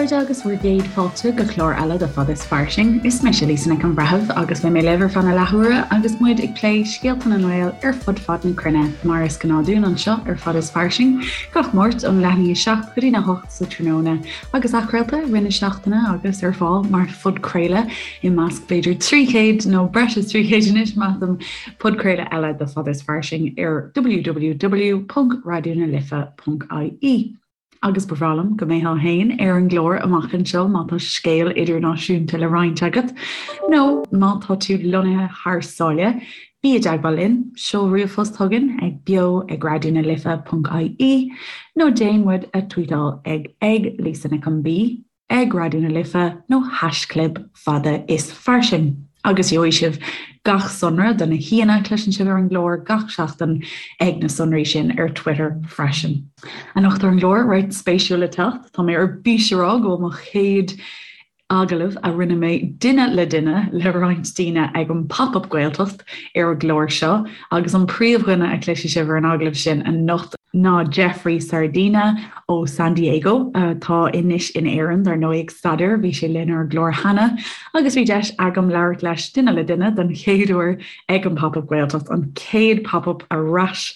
chairde agus bhur gcéad fáilte go clár eile de Fada is Fairsing. Is mise Lisa Nic an Bhreithimh agus beidh mé libh ar feadh na leathuaire agus muid ag plé scéalta na nGael ar fud fad na cruinne, mar is gnáth dúinn anseo ar Fada is Fairsing, gach Máirt ón leath i ndiaidh 7 go dtí na 8 sa tráthnóna agus athchraolta i rith na seachtaine agus ar fáil mar phodchraoladh i measc b'fhéidir 300 nó breis is 300 anois measaim podchraoladh eile de Fada is Fairsing ar www.raidionalife.ie. Agus ba bhreá liom go mbeifeá féin ar an gclár amach anseo má tá scéal idirnáisiúnta le roinnt agat, nó má tá tú lonnaithe thar sáile, bí i dteagmháil linn, seol ríomhphost chugainn ag beo ag raidionalife.ie nó déan muid a tweetáil ag ag Lisa Nic an B. ag Raidió na Life nó haischlib fada is fairsing agus gheobhaidh sibh gach sonra do na haíonna a chloiseann sibh ar an gclár gach seachtain ag na sonraí sin ar Twitter freisin. Anocht ar an gclár, roinnt spéisiúil le teacht, tá mé ar bís a rá go bhfuil mo chéad agallamh a rinne mé duine le duine le roinnt daoine ag an Pop Up Gaeltacht ar an gclár seo agus an príomhdhuine a chloisfidh sibh ar an agallamh sin anocht ná Jeffrey Sardina ó San Diego, atá anois in Éirinn, dar ndóigh, ag staidéar. Bhí sé linn ar an gclár cheana agus bhí deis agam labhairt leis duine le duine don chéad uair ag an Pop Up Gaeltacht, an chéad Pop Up ar ais,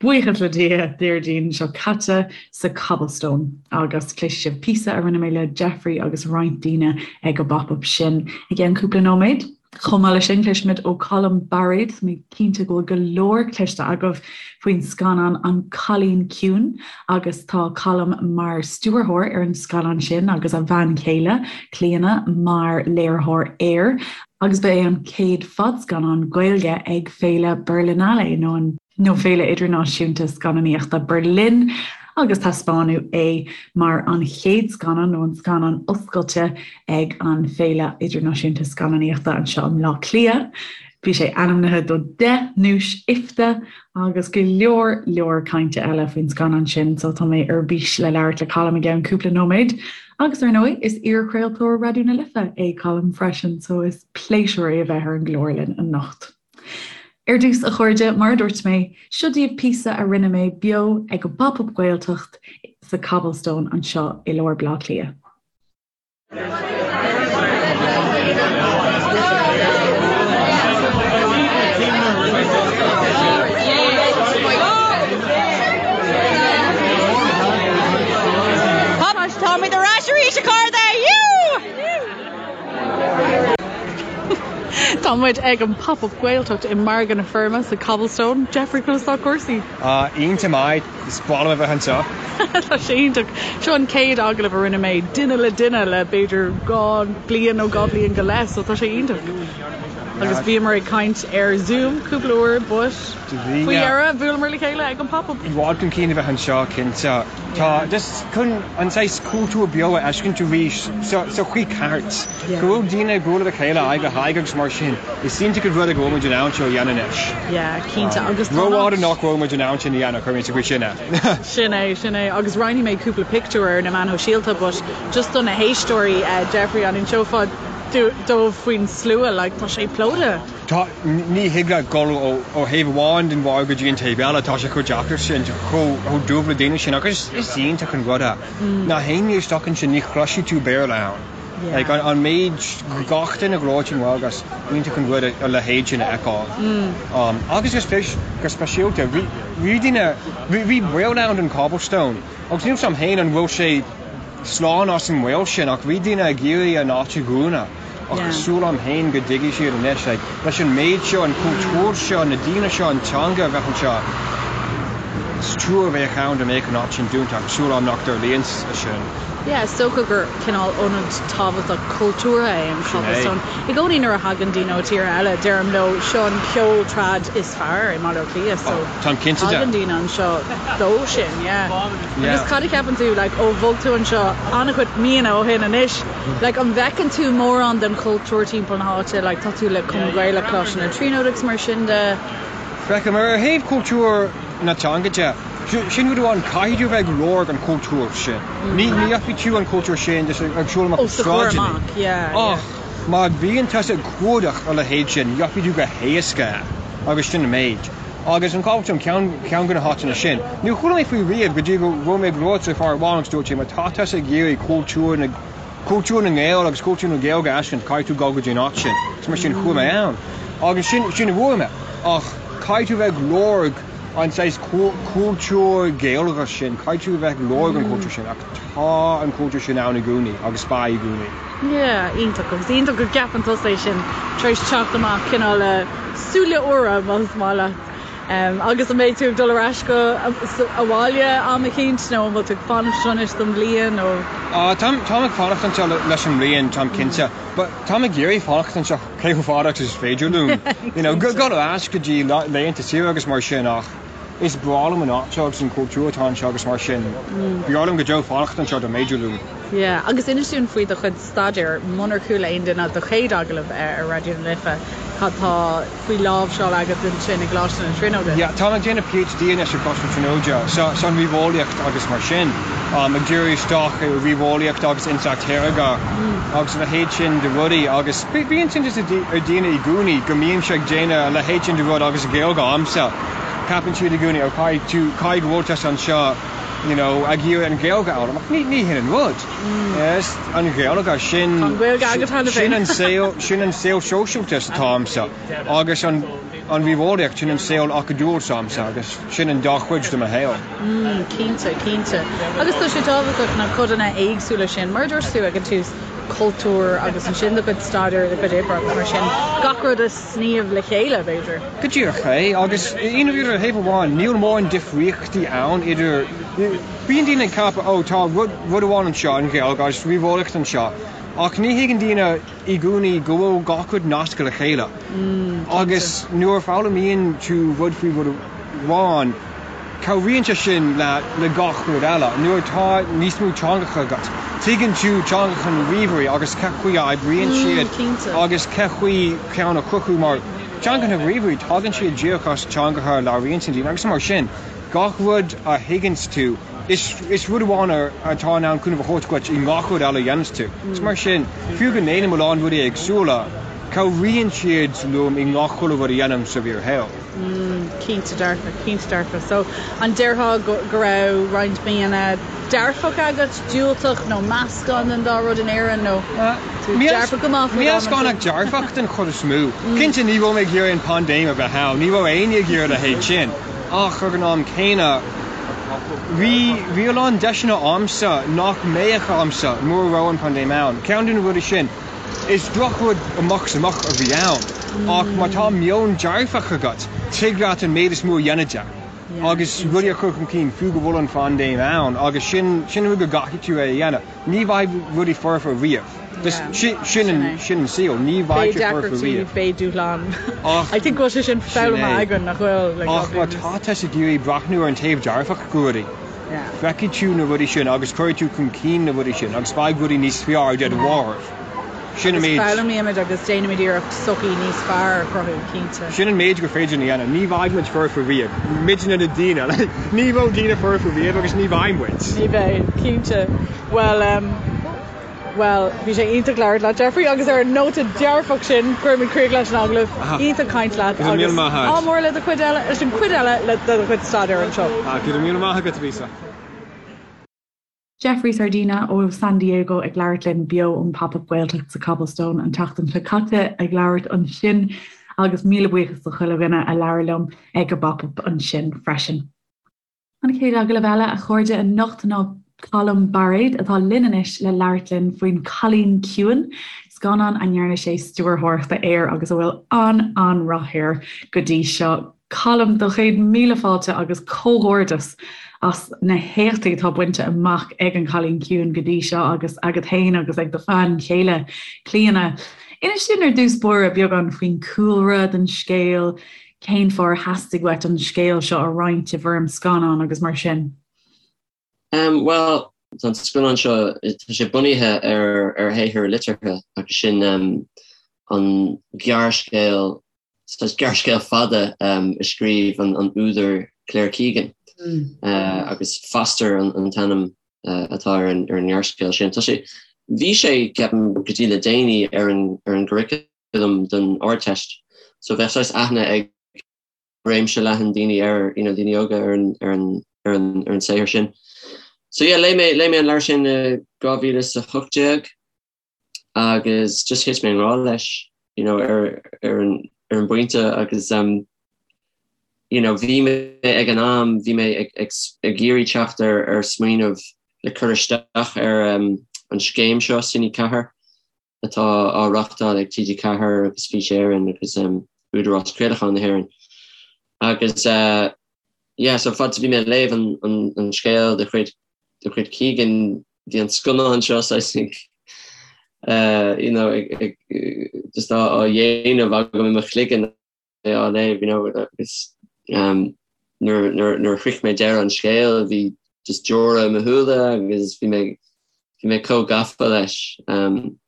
buíochas le Dia, Déardaoin seo caite sa Cobblestone. Agus cloisfidh sibh píosa a rinne mé le Jeffrey agus roinnt daoine ag an bPop Up sin i gceann cúpla nóiméad. Chomh maith leis sin, cloisfimid ó Colm Bairéad, tá mé cinnte go bhfuil go leor cloiste agaibh faoin scannán An Cailín Ciúin agus tá Colm mar stiúrthóir ar an scannán sin agus a bhean chéile, Clíona, mar léiritheoir air agus ba é an chéad fadscannán Gaeilge ag Féile Berlinale nó an nó Féile Idirnáisiúnta Scannánaíochta Berlin agus taispeánadh é mar an chéad scannán nó an scannán oscailte ag an Féile Idirnáisiúnta Scannánaíochta anseo i mBleá Cliath. Bhí sé ainmnithe do 10 nduais IFTA agus go leor leor cainte eile faoin scannán sin so tá mé ar bís le labhairt le Colm i gceann cúpla nóiméad. Agus ar ndóigh is iarchraoltóir Raidió na Life é Colm freisin so is pléisiúr é a bheith ar an gclár linn anocht. Ar dtús, a chairde, mar a dúirt mé, seo daoibh píosa a rinne mé beo ag an bPop Up Gaeltacht sa Cobblestone anseo i lár Bhaile Átha Cliath. Táimid ar ais arís, a chairde! Tá muid ag an Pop Up Gaeltacht i Margadh na Feirme sa Cobblestone. Jeffrey, conas tá cúrsaí? Iontach maith, is breá liom a bheith anseo. Tá sé iontach. Seo an chéad agallamh a rinne mé duine le duine le b'fhéidir 2 bliain nó 2 bliain go leith, so tá sé iontach. Agus bhíomar ag caint ar Zoom cúpla uair but faoi dheireadh bhuaileamar le chéile ag an Pop Up. I bhfad chun cinn a bheith anseo, cinnte. Tá just chun an saghas cultúr beo a fheiscint arís sa chaoi ceart, go bhfuil daoine ag bualadh le chéile aghaidh le haghaidh agus mar sin, is iontach an rud é go bhfuil muid in ann seo a dhéanamh anois. Yeah, cinnte agus tá Rófhada nach bhfuil muid in ann sin a dhéanamh, cuirfidh mé sa chaoi sin é. Sin é, sin é. Agus roinnfidh mé cúpla pictiúr ar na meáin shóisialta but just do na héisteoirí, Jeffrey, an inseofá dóibh faoin slua, like tá sé plódaithe. Tá, ní thig leat dul ó thaobh amháin den bharr go dtí an taobh eile, tá sé chomh deacair sin, chomh dubh le daoine sin agus is iontach an rud é. Na héinne isteach ansin ní chloisfidh tú Béarla ann. Like an méid, gach duine ag labhairt i nGaeilge, is iontach an rud a leithéid sin a fheiceáil. Agus go speisialta, bhí daoine, bhí baol ann don Cobblestone agus níl 's a'm féin an bhfuil sé slán as an mbaol sin ach bhí daoine ag iarraidh an áit a dhúnadh. Ach tá súil a'm féin go dtuigfidh siad anois, like, leis an méid seo, an cultúr seo, na daoine seo, an teanga a bheith anseo, is trua a bheadh ann dá mbeadh an áit sin dúnta ach súil a'm nach dtarlaíonn sé sin. Yeah, is dócha gur cineál ionad tábhachtach cultúrtha é an Sin é. Cobblestone. I gcónaí nuair a thagann daoine ó tíortha eile, deirim leo, seo an ceol trad is fearr i mBaile Átha Cliath, so Oh, táim cinnte de. tagann daoine anseo dó sin, yeah. Yeah. Agus cad a cheapann tú, like, ó bhog tú anseo an-chuid míonna ó shin anois, Like an bhfeiceann tú mórán den chultúr timpeall na háite, like tá tú le Cumann Gaelach Choláiste na Tríonóide agus mar sin de? Feicim, ar thaobh cultúr na teanga de, sin rud amháin, caithfidh tú a bheith ag lorg an chultúir sin. Ní gheobhaidh tú an cultúr sin just ag siúl amach Os do chomhair sráideanna. amach, yeah, yeah. Ach má bhíonn tusa ag cuardach a leithéid sin, gheobhaidh tú go héasca é, agus sin an méid. Agus an Cobblestone ceann ceann de na háiteanna sin. Níor chuala mé faoi riamh go dtí go raibh mé ag labhairt le fear amháin agus dúirt sé má tá tusa ag iarraidh cultúr na. Cultúr na nGael agus cultúr na Gaeilge a fheiscint, caithfidh tú dul go dtí an áit sin. Is mar sin chuaigh mé ann. Agus sin, sin a bhfuair mé. Ach caithfidh tú bheith ag lorg an saghas cultúr Gaeilge sin, caithfidh tú bheith ag lorg an cultúr sin. Ach tá an cultúr sin ann i gcónaí agus beidh i gcónaí. Yeah, iontach. Agus iontach go gceapann tusa é sin tar éis teacht amach cineál le súile úra, más maith leat. Agus an mbeidh tú ag dul ar ais go abhaile am eicínt nó an bhfuil tú ag fanacht anseo anois don bhliain nó? Táim táim ag fanacht anseo leis an mbliain, táim cinnte. But táim ag iarraidh fanacht anseo cé chomh fada agus is féidir liom. You know, dul ar ais go dtí laethanta saoire agus mar sin ach is breá liom an áit seo agus an cultúr atá anseo agus mar sin. B'fhearr liom go deo fanacht anseo dá mb'fhéidir liom. Yeah, agus inis dúinn faoi do chuid staidéir, munar chuala aon duine do chéad agallamh ar Raidió na Life, cad tá faoi láimhseáil agat ansin i gColáiste na Tríonóide? Yeah, táim ag déanamh PhD anois i gColáiste na Tríonóide, sa san ríomheolaíocht agus mar sin. Ag díriú isteach ar ríomheolaíocht agus intleacht shaorga agus a leithéid sin de rudaí agus bíonn iontas ar daoine i gcónaí go mbímse ag déanamh a leithéid sin de rud agus Gaeilge a'msa. Ceapann siad i gcónaí, oh caithfidh tú, caithfidh go bhfuil tusa anseo you know, ag iarraidh an Ghaeilge a fhoghlaim ach ní, ní hin an rud. Is an Ghaeilge, sin, Tá an Ghaeilge agat cheana féin. sin an saol, sin an saol sóisialta atá a'msa agus an, an ríomheolaíocht, sin an saol acadúil s'a'msa agus sin an dá chuid de mo shaol. Mm, cinnte, cinnte. Agus tá sé tábhachtach na codanna éagsúla sin, mar a dúirt tú ag an tús, cultúr agus ansin do chuid staidéir, do chuid oibre agus mar sin, gach rud a sníomh le chéile, b'fhéidir. Go díreach é, agus i ndáiríre, ar thaobh amháin, níl mórán difríochtaí ann idir, bíonn daoine ag ceapadh, ó, tá rud, rud amháin anseo, an Ghaeilge, agus ríomheolaíocht anseo, ach ní thuigeann daoine i gcónaí go bhfuil gach rud nasctha le chéile. Agus nuair a foghlaimíonn tú rud faoi rud amháin, Cabhraíonn sé sin le gach rud eile. Nuair atá níos mó teangacha agat, tuigeann tú teangacha na ríomhairí agus cén chaoi a oibríonn siad agus cén chaoi ceann a chruthú mar teangacha na ríomhairí, tagann siad díreach as teangacha a labhraíonn daoine agus mar sin, gach rud a thuigeanns tú, is rud amháin atá in ann cúnamh a thabhairt duit i ngach rud eile a dhéananns tú. Is mar sin, fiú go ndéanaim a lán rudaí éagsúla, cabhraíonn siad liom i ngach chuile rud a dhéanaim sa bhfíorshaol. Mm, cinnte dearfa, cinnte dearfa. So, an déarfá go, go raibh roinnt míonna dearfach agat, diúltach nó meascán den dá rud in Éirinn nó tú dearfach go maith faoi Meascán ach dearfach den chuid is mó. Cinnte ní raibh mé ag iarraidh an paindéim a bheith ann, ní raibh éinne ag iarraidh a leithéid sin, ach ag an am céanna bhí, bhí a lán deiseanna a'msa nach mbeadh a'msa mura raibh an paindéim ann. Ceann de na rudaí sin, Is drochrud amach is amach a bhí ann, ach má tá meon dearfach agat, tig leat an méid is mó a dhéanamh de agus rudaí a chur chun cinn, fiú go bhfuil an phaindéim ann, agus sin sin an rud go gcaithfidh tú é a dhéanamh. Ní bheidh rudaí foirfe riamh. Sin an sin an saol, ní bheidh sé foirfe riamh. Beidh dúshlán. Ach I think go bhfuil sé sin foghlamtha againn, nach bhfuil? Ach má tá tusa ag iarraidh breathnú ar an taobh dearfach de rudaí, Feicfidh tú na rudaí sin agus cuirfidh tú chun cinn na rudaí sin agus beidh rudaí níos fearr de do bharr. Sin an méid. Agus foghlaimímid agus déanaimid iarracht sochaí níos fearr a chruthú, cinnte. Sin an méid gur féidir a dhéanamh. Ní bheidh muid foirfe riamh. Muidne na daoine. Ní raibh daoine foirfe riamh agus ní bheidh muid. Ní bheidh, cinnte. Bhuel, Bhuel, bhí sé iontach labhairt leat, Jeffrey, agus ar an nóta dearfach sin, cuirimid críoch leis an agallamh. Iontach caint leat agus ádh mór le do chuid eile, leis an chuid eile de do chuid staidéir anseo. Go raibh míle maith agat, Lisa. Jeffrey Sardina ó San Diego ag labhairt linn beo ón Pop Up Gaeltacht sa Cobblestone an tseachtain seo caite ag labhairt ansin agus míle buíochas do chuile dhuine a labhair liom ag an bPop Up ansin freisin. An chéad agallamh eile, a chairde, anocht ná Colm Bairéad, atá linn anois le labhairt linn faoin Cailín Ciúin, scannán a ndearna sé stiúrthóireacht air agus a bhfuil an-an-rath air go dtí seo. Colm, do chéad míle fáilte agus comhghairdeas as na héachtaí atá bainte amach ag An Cailín Ciúin go dtí seo agus agat féin agus ag do bhean chéile, Clíona. Inis dúinn ar dtús báire beagán faoin cúlra den scéal, Cén fáth ar theastaigh uait an scéal seo a roinnt i bhfoirm scannáin agus mar sin? Em, bhuel, tá an scannán seo, tá sé bunaithe ar, ar shaothar liteartha agus sin em, an gearrscéal, saghas gearrscéal fada em, a scríobh an, an údar Claire Keegan mm. uh, agus Foster an, an t-ainm uh, atá ar an, ar an ngearrscéal sin. Tá sé, bhí sé, ceapaim, go dtí le déanaí ar an, ar an gcurriculum curriculum don Ardteist. So bheadh saghas aithne ag réimse leathan daoine air, you know, daoine óga ar an, ar an, ar an, ar an saothar sin. So yeah, léigh mé, léigh mé an leabhar sin i 2018. Agus just thit mé i ngrá leis, you know, ar ar an ar an bpointe agus um, you know, bhí mé ag an am, bhí mé ag ag ag iarraidh teacht ar ar smaoineamh le cur isteach ar um, an scéim seo Cine 4 atá á reáchtáil ag TG4 agus Fís Éireann agus um, Údarás Craolacháin na hÉireann. Agus uh, yeah, so fad is a bhí mé ag léamh an, an, an scéal de chuid de chuid Keegan, bhí an scannán seo saghas ag uh, you know, ag, ag, just á, á dhéanamh agam i mo chloigeann é á léamh, you know, agus um, nuair, nuair, nuair a shroich mé deireadh an scéil bhí just deora i mo shúile agus bhí mé, bhí mé chomh gafa leis. Um,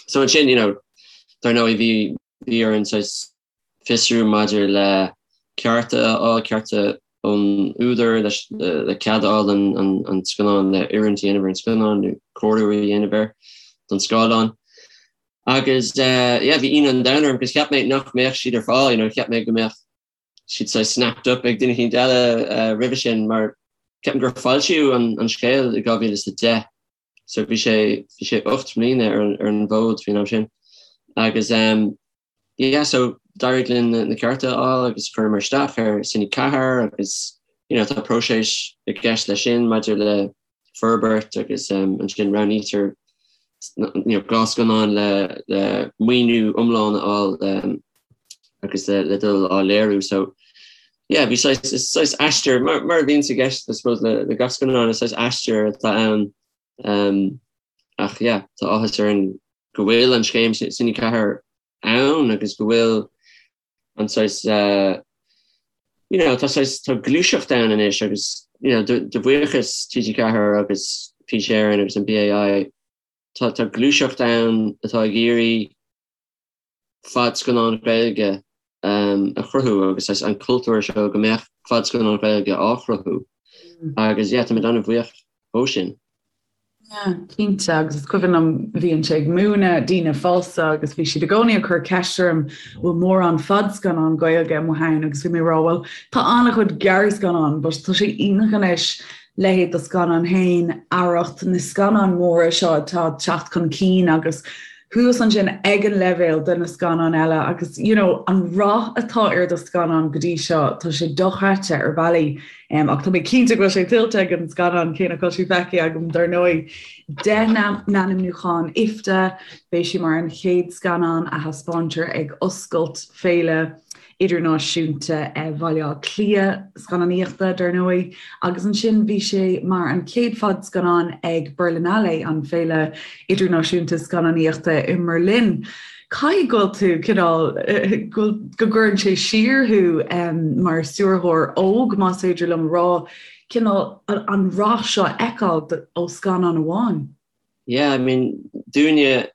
so ansin, you know, dar ndóigh bhí, bhí orainn saghas fiosrú maidir le cearta a fháil, cearta ón údar leis le cead a fháil an scannán le oiriúint a dhéanamh ar an scannán nó cóiriú a dhéanamh air don scáileán. Agus yeah bhí ionadh an domhain orm because cheap mé nach mbeadh siad ar fáil, you know, cheap mé go mbeadh siad saghas snapped up ag duine eicínt eile roimhe sin mar ceapaim gur foilsíodh an scéal i 2010. So bhí sé bhí sé 8 mbliana ar an ar an bhfód faoin am sin. Agus um, yeah, so d'éirigh linn na, na cearta a fháil agus chuireamar isteach ar Cine 4 agus you know, tá próiseas i gceist leis sin maidir le forbairt agus um, ansin roghnaítear you know, 2 scannán le, le maoiniú iomlán a fháil um, agus le, le dul á léiriú. So yeah, bhí saghas, is saghas aistear, mar, mar a bhíonns i gceist, I suppose, le, le gach scannán, is saghas aistear atá ann. Um, ach yeah, tá áthas orainn go bhfuil an scéim Cine 4 ann agus go bhfuil an saghas, uh, you know, tá saghas, tá gluaiseacht ann anois agus, you know, de, de bhuíochas TG4 agus Fís Éireann agus an BAI, tá, tá gluaiseacht ann atá ag iarraidh fadscannáin Ghaeilge a chruthú agus an cultúr seo go mbeadh fadscannáin Ghaeilge á chruthú agus yeah táimid an-bhuíoch dhó sin. Yeah, cinnte agus is cuimhin liom bhínnse ag múineadh daoine fásta agus bhí siad i gcónaí ag cur ceist orm bhfuil mórán fadscannán Gaeilge amuigh ann agus bhí mé ag rá bhuel tá an-chuid gearrscannán but tá sé iontach anois leithéid do scannán féin, Arracht, na scannáin mhóra seo atá ag teacht chun cinn agus thuas ansin ag an leibhéal de na scannáin eile agus you know an rath atá ar do scannán go dtí seo, tá sé dochreidte ar bhealaí um, ach tá mé cinnte go bhfuil sé tuillte ag an scannán cé nach bhfuil sé feicthe agam dar ndóigh. 10 n-ainmniúchán IFTA, beidh sé mar an chéad scannán a thaispeántar ag oscailt féile Idirnáisiúnta Bhaile Átha Cliath scannánaíochta, dar ndóigh, agus ansin bhí sé mar an chéad fadscannán ag Berlinale, an féile idirnáisiúnta scannánaíochta i mBerlin. Caithfidh go bhfuil tú cineál, go gcuireann sé siar thú mar stiúrthóir óg, más féidir liom a rá, cineál an rath seo a fheiceáil ó scannán amháin. Yeah, I mean, dúinne,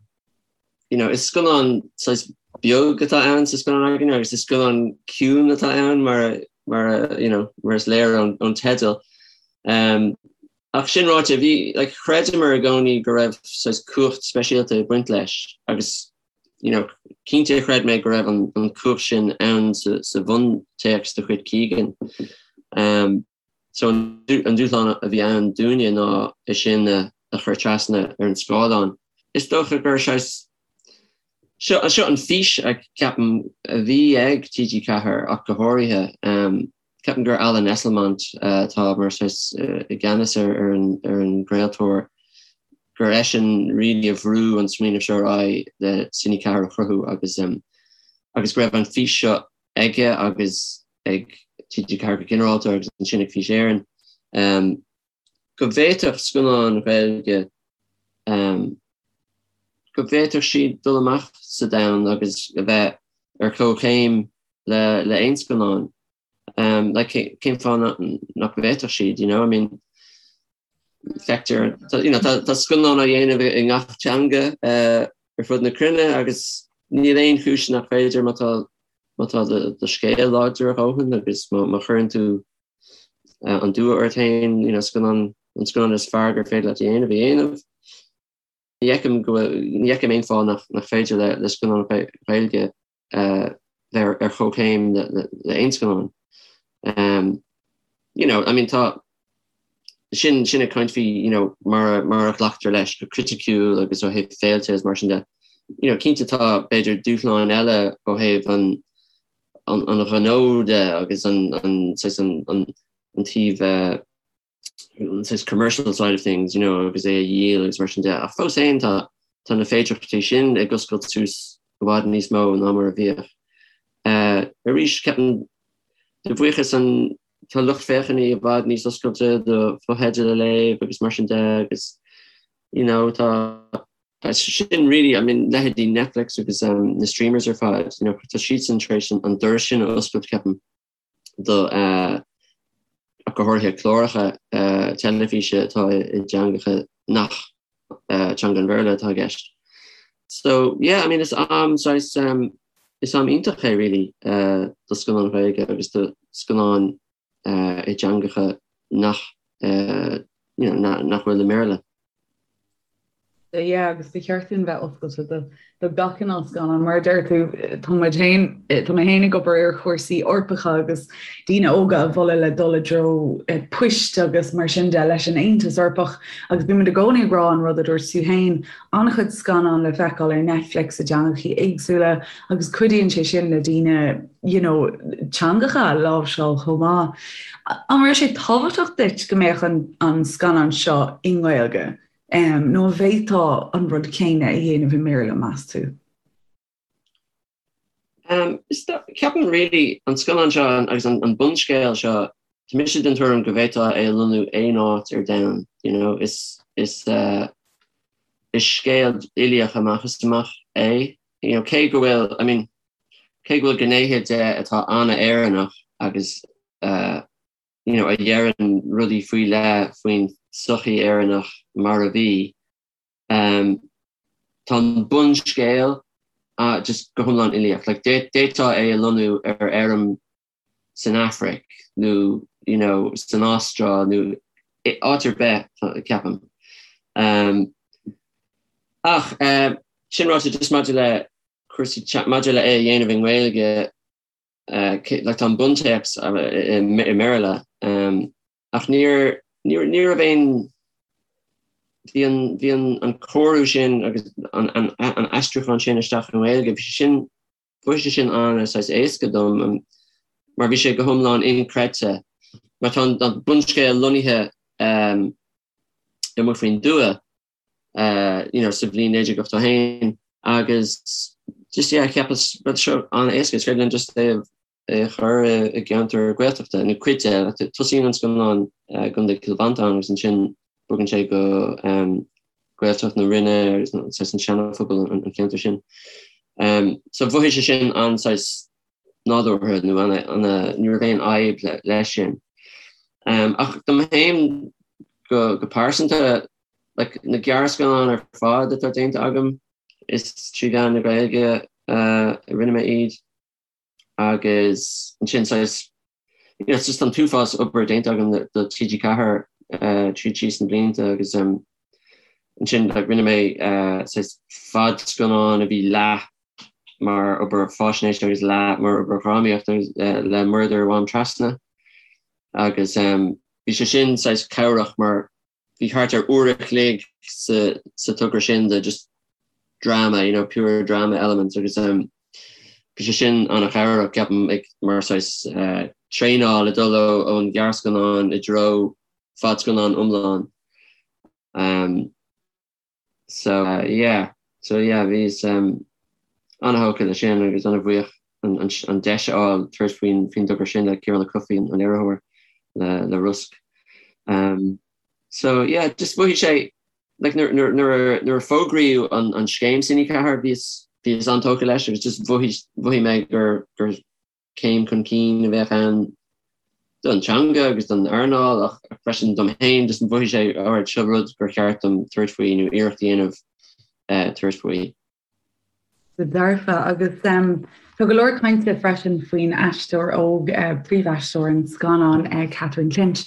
you know, is scannán saghas beag atá ann sa scannán againne agus is scannán ciúin atá ann mar mar you know, mar is léir ón, ón teideal. Um, ach sin ráite, bhí, like, chreideamar i gcónaí go raibh saghas cumhacht speisialta ag baint leis agus you know, cinnte chreid mé go raibh an, an cumhacht sin ann sa, sa bhuntéacs de chuid Keegan. Um, So an dúshlán a bhí ann dúinne ná é sin a chur trasna ar an scáileán. Is dócha gur saghas, seo, seo an fís a ceapaim a bhí ag TG4 ach go háirithe. Ceapaim gur Alan Esslemont atá mar saghas i gceannas ar ar an ar an gcraoltóir, gur eisean really a bhrú an smaoineamh seo ar aghaidh le Cine 4 a chruthú agus agus go raibh an fís seo aige agus ag TG4 go ginearálta agus ansin ag Fís Éireann, go bhféadfadh scannáin Ghaeilge, go bhféadfadh siad dul amach sa domhan agus a bheith ar comhchéim le le aon scannán. Like, cén fáth nach bhféadfadh siad, you know? I mean, feictear, you know, tá scannáin á dhéanamh i ngach teanga ar fud na cruinne agus níl aon chúis nach féidir má tá má tá do scéal láidir a dhóthain agus má chuireann tú an dua ort féin, you know, scannán, an scannán is fearr gur féidir leat a dhéanamh a dhéanamh. Ní fheicim go bhfuil, ní fheicim aon fáth nach nach féidir le le scannán Ghaeilge bheith ar chomhchéim le aon scannán. You know, I mean tá. Sin sin ag caint faoi you know mar mar a ghlactar leis go criticiúil agus ó thaobh féilte agus mar sin de. You know cinnte tá b'fhéidir dúshláin eile ó thaobh an an an ghnó de agus an an saghas an an an taobh eh, an saghas commercial side of things you know agus é a dhíol agus mar sin de. Ach fós féin tá tá na féidearthachtaí sin ag oscailt suas i bhfad níos mó ná mar a bhíodh. Eh, arís ceapaim de bhuíochas an Tá lucht féachana i bhfad níos oscailte do fotheidil a léamh agus mar sin de agus you know tá sin really I mean leithéidí Netflix agus um, na streamers ar fad you know tá siadsan tar éis an doras sin a oscailt ceapaim do uh, go háirithe cláracha uh, teilifíse atá i dteangacha nach uh, teanga an Bhéarla atá i gceist. So yeah, I mean is am saghas um, is am iontach é really uh, do scannáin Ghaeilge agus do scannáin uh, i dteangacha nach uh, you know, na, nach bhfuil i mBéarla. Yeah, agus ba cheart dúinn bheith oscailte do do gach cineál scannán. Mar a deir tú, tá muid féin, tá mé féin ag obair ar chúrsaí Eorpacha agus daoine óga a mholadh le dul i dtreo poist agus mar sin de leis an Aontas Eorpach agus bímid i gcónaí ag rá an rud a dúirt tú féin, an-chuid scannán le feiceáil ar Netflix i dteangachaí éagsúla agus cuidíonn sé sin le daoine you know, teangacha a láimhseáil chomh maith. An raibh sé tábhachtach duit go mbeadh an, an scannán seo i nGaeilge? Nó an bhféadfá an rud céanna a dhéanamh i mBéarla, meas tú? Ceapaim really an scannán seo agus an bunscéal seo, tá mise den tuairim go bhféadfá é a lonnú aon áit ar domhan, you know, is is uh, is scéal uilíoch amach is amach é, you know, cé go bhfuil, I mean, cé go bhfuil gnéithe de atá an-Éireannach agus uh, you know, a dheireann rudaí faoi leith faoin tsochaí Éireannach mar a bhí. Um, tá an bunscéal uh, just go hiomlán uilíoch. Like, d'fhéadfá é a lonnú ar fheirm san Afraic nó you know, san Astráil nó áit ar bith, ceapaim. Um, ach uh, sin ráite just maidir le cúrsaí maidir le é a dhéanamh i nGaeilge, like tá an buntéacs i mBéarla ach níor ní raibh aon bhí an bhí an an cóiriú sin agus an an an aistriúchán sin isteach i nGaeilge bhí sé sin bhí sé sin an saghas éasca dom mar bhí sé go hiomlán inchreidte mar tá an bunscéal lonnaithe amuigh faoin dtuath you know, sa bhliain 1981 agus just yeah, cheapas rud seo an-éasca, is féidir linn just é a chur i gceantar Gaeltachta nó cuid de, tosaíonn an scannán i gContae Chill Mhantáin agus ansin bogann sé go um, Gaeltacht na Rinne agus saghas an Seanaphobal an ceantar sin. Um, so mhothaigh sé sin an saghas nádúrtha nó an ní raibh aon fhadhb leis sin. Um, ach dom féin go, go pearsanta Like, na gearrscannáin ar fad atá déanta agam, is trí mheán na Gaeilge a rinne mé iad agus ansin saghas, you know, it's just an t-uafás obair déanta agam do TG4 tríd síos na blianta agus ansin like rinne mé saghas fadscannán a bhí leath mar obair faisnéise agus leath mar obair dhrámaíochta le Murdair Mhám Trasna agus bhí sé sin saghas cabhrach mar bhí thart ar uair a chloig sa sa togra sin de just drama, you know, pure drama elements agus um, bhí sé sin an-chabhrach ceapaim ag mar saghas uh, traenáil ag dul ón ghearrscannán i dtreo fadscannán iomlán. Um, So uh, yeah, so yeah, bhíos um, an-thógtha le sin agus an-bhuíoch an, an, an deis a fháil tabhairt faoin faoin dtogra sin le Ciarán Ó Cofaigh an léiritheoir le, le Rosc. Um, so yeah, just mhothaigh sé like, nuair, nuair, nuair, nuair a fógraíodh an, an scéim Cine 4 bhíos bhíos an-tógtha leis agus just mhothaigh mhothaigh mé gur gur céim chun cinn a bheadh ann don teanga agus don earnáil ach freisin dom féin, just mhothaigh sé alright seo rud gur cheart dom tabhairt faoi nó iarracht a dhéanamh tabhairt faoi. Go dearfa. Agus tá go leor cainte freisin faoin aisteoir óg, príomhaisteoir an scannáin, Catherine Clinch.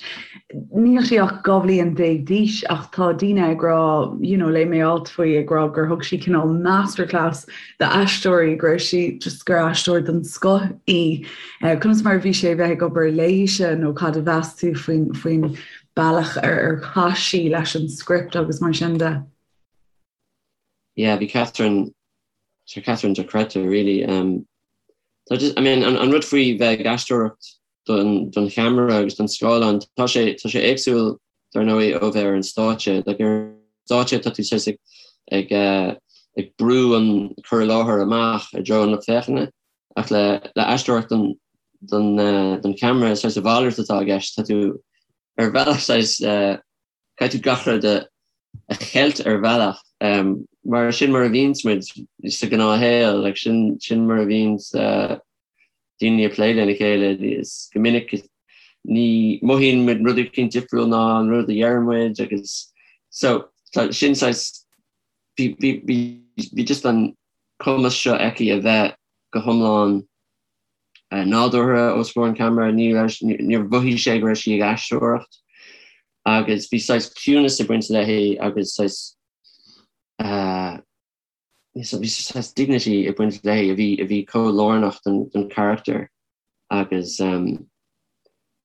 Níl sí ach 12 bhliain d'aois ach tá daoine ag rá, you know, léigh mé alt faoi ag rá gur thug sí cineál masterclass d'aisteoirí, go raibh sí just gur aisteoir den scoth í. Conas mar a bhí sé a bheith ag obair léise nó cad a mheas tú faoin faoin. bealach ar ar chaith sí leis an script agus mar sin de. Yeah, bhí Catherine, tá Catherine dochreidte really. Um, tá just, I mean, an, an rud faoi bheith ag aisteoireacht don, don cheamara agus don scáileán, tá sé, tá sé éagsúil dar ndóigh ó bheith ar an stáitse. Like, ar an stáitse tá tú saghas ag, ag, uh, ag brú an cur i láthair amach i dtreo an lucht féachana, ach le, le aisteoireacht don, don, uh, don cheamara saghas a mhalairt atá i gceist. Tá tú ar bhealach saghas, uh, caithfidh tú gach rud a cheilt ar bhealach, mar sin mar a bhíonns muid sa ghnáthshaol, like sin sin mar a bhíonns daoine ag plé lena chéile, is go minic ní mothaíonn muid rud éicint difriúil ná an rud a deireann muid agus so tá sin saghas bhí bhí bhí bhí just an cumas seo aici a bheith go hiomlán nádúrtha os comhair an cheamara, ní raibh níor mhothaigh sé go raibh sí ag aisteoireacht. agus bhí saghas ciúnas ag baint léi agus saghas bhí saghas dignity ag baint léi a bhí a bhí chomh lárnach don don charachtar agus um,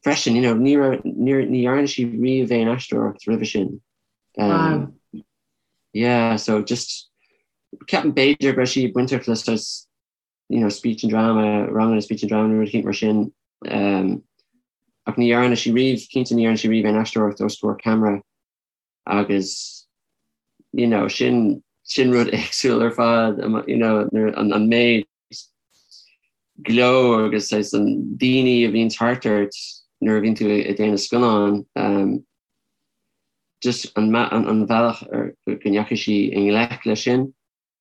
freisin you know, ní raibh ní ní dhearna sí riamh aon aisteoireacht roimhe sin. Um, wow. Yeah, so just ceapaim b'fhéidir go raibh sí bainteach le saghas you know, speech and drama, ranganna speech and drama nó rud eicínt mar sin. Um, ach ní dhearna sí riamh, cinnte ní dhearna sí riamh aon aisteoireacht os comhair ceamara agus you know, sin, sin rud éagsúil ar fad, you know, an, an méid gleo agus saghas an daoine a bhíonn thart ort nuair a bhíonn tú ag déanamh scannán, um, just an, an, an bhealach ar go ndeachaigh sí i ngleic leis sin.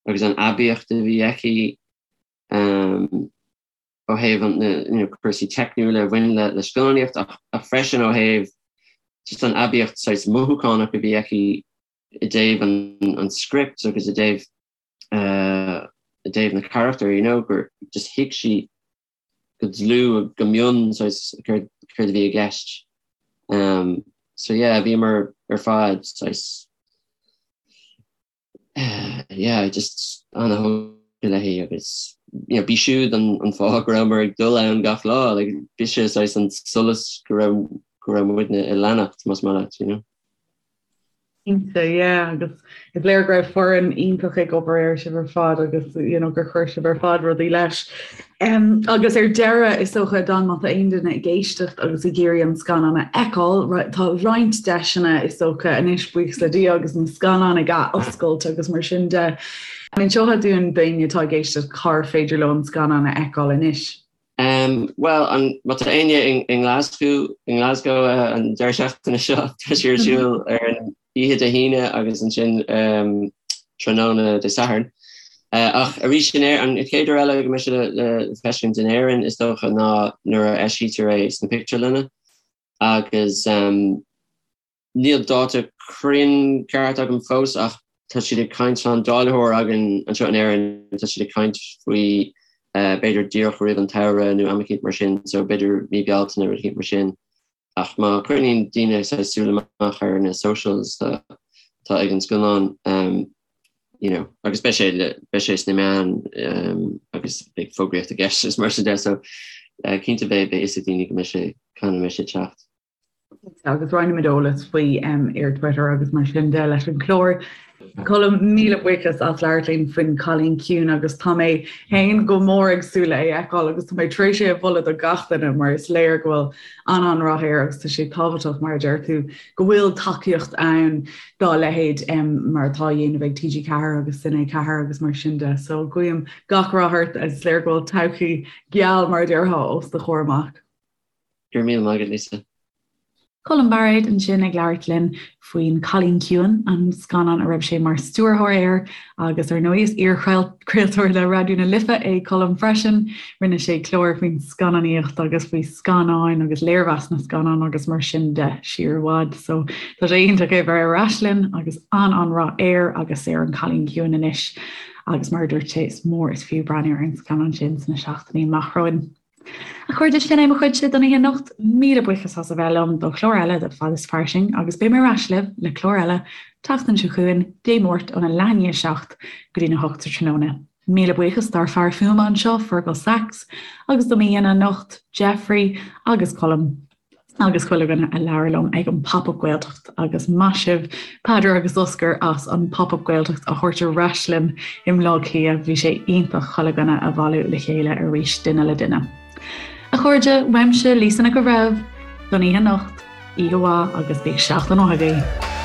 agus an aibíocht a bhí aici ó thaobh na cúrsaí teicniúla a bhain le scannánaíocht ach freisin ó thaobh just an aibíocht saghas mothúchánach a bhí aici i dtaobh an script agus i dtaobh i dtaobh na carachtar, you know, gur just thuig sí go dlúth, go mion saghas céard a bhí i gceist. So yeah, bhíomar ar fad saghas yeah, just ana-thógtha léi agus you know, b'í siúd an, an fáth go rabhamar ag dul ann gach lá, like, b'ise saghas an solas go raibh, go raibh muidne ag leanacht, más maith leat, you know. Cinnte, yeah, agus is léir go raibh foireann iontach ag obair air sibh ar fad agus you know, gur chuir sibh ar fad rudaí leis. Um, agus ar deireadh, is dócha, Dan, má tá aon duine ag éisteacht agus ag iarraidh an scannán a fheiceáil, tá roinnt deiseanna, is dócha, anois, buíochas le Dia, agus na scannáin ag athoscailt agus mar sin de. An inseofá dúinn d'éinne atá ag éisteacht cár féidir leo an scannán a fheiceáil anois? Um, Bhuel, an, má tá éinne i nGlasgow, i nGlasgow uh, an deireadh seachtaine seo, tá sé ar siúl ar an oíche Dé hAoine agus ansin um, tráthnóna Dé Sathairn. Uh, ach arís in Éirinn, an chéad uair eile go mbeidh sé le, le feiscint in Éirinn is dócha ná nuair a eisítear é sna pictiúrlanna agus um, níl dáta cruinn ceart agam fós ach tá siad ag caint tá an dáilitheoir againn anseo in Éirinn tá siad ag caint faoi uh, b'fhéidir díreach roimh an tsamhradh nó am eicínt mar sin so b'fhéidir mí Bealtaine rud eicínt mar sin. Ach má choinníonn daoine saghas súil amach ar na socials atá ag an scannán, you know, agus beidh sé beidh sé sna meáin agus beidh fógraíocht i gceist is mar sin de, so cinnte beidh beidh fhios ag daoine go mbeidh sé cathain a mbeidh sé ag teacht. Agus roinnfimid eolas faoi ar Twitter agus mar sin de leis an chlár. Colm, míle buíochas as labhairt linn faoin Cailín Ciúin agus tá mé féin go mór ag súil le é a fheiceáil agus tá mé tar éis é a mholadh do gach duine mar is léir go bhfuil an-an-rath air agus tá sé tábhachtach mar a deir tú go bhfuil tacaíocht ann dá leithéid mar atá á dhéanamh ag TG4 agus Cine 4 agus mar sin de. So guím gach rath ort is léir go bhfuil todhchaí geal mar a déarfá os do chomhair amach. Go raibh míle maith agat, Lisa. Colm Bairéad ansin ag labhairt linn faoin Cailín Ciúin, an scannán a raibh sé mar stiúrthóir air agus ar ndóigh is iar-chraoltóir le Raidió na Life é Colm freisin. Rinne sé clár faoin scannánaíocht agus faoi scannáin agus léirmheas na scannán agus mar sin de siar i bhfad. So tá sé iontach é bheith ar ais linn agus an-an-rath air agus ar an Cailín Ciúin anois agus mar a dúirt sé is mór is fiú breathnú ar an scannán sin sna seachtainí amach romhainn. A chairde, sin é mo chuidse don oíche anocht. Míle buíochas as a bheith liom do chlár eile de Fad is Fairsing agus beidh mé ar ais libh le clár eile tseachtain seo chugainn, Dé Máirt óna leath i ndiaidh a 7 go dtína 8 sa tráthnóna. Míle buíochas dár fear fuaime anseo, Fergal Sachs, agus do m'aíonna anocht, Jeffrey agus Colm. Agus chuile dhuine a labhair liom ag an Pop Up Gaeltacht agus maith sibh Peadar agus Oscar as an Pop Up Gaeltacht a thabhairt ar ais linn i mBleá Cliath, bhí sé iontach chuile dhuine a bhailiú le chéile arís duine le duine. A chairde, uaimse Lisa Nic an Bhreithimh, don oíche anocht, oíche mhaith agus bíodh seachtain mhaith agaibh.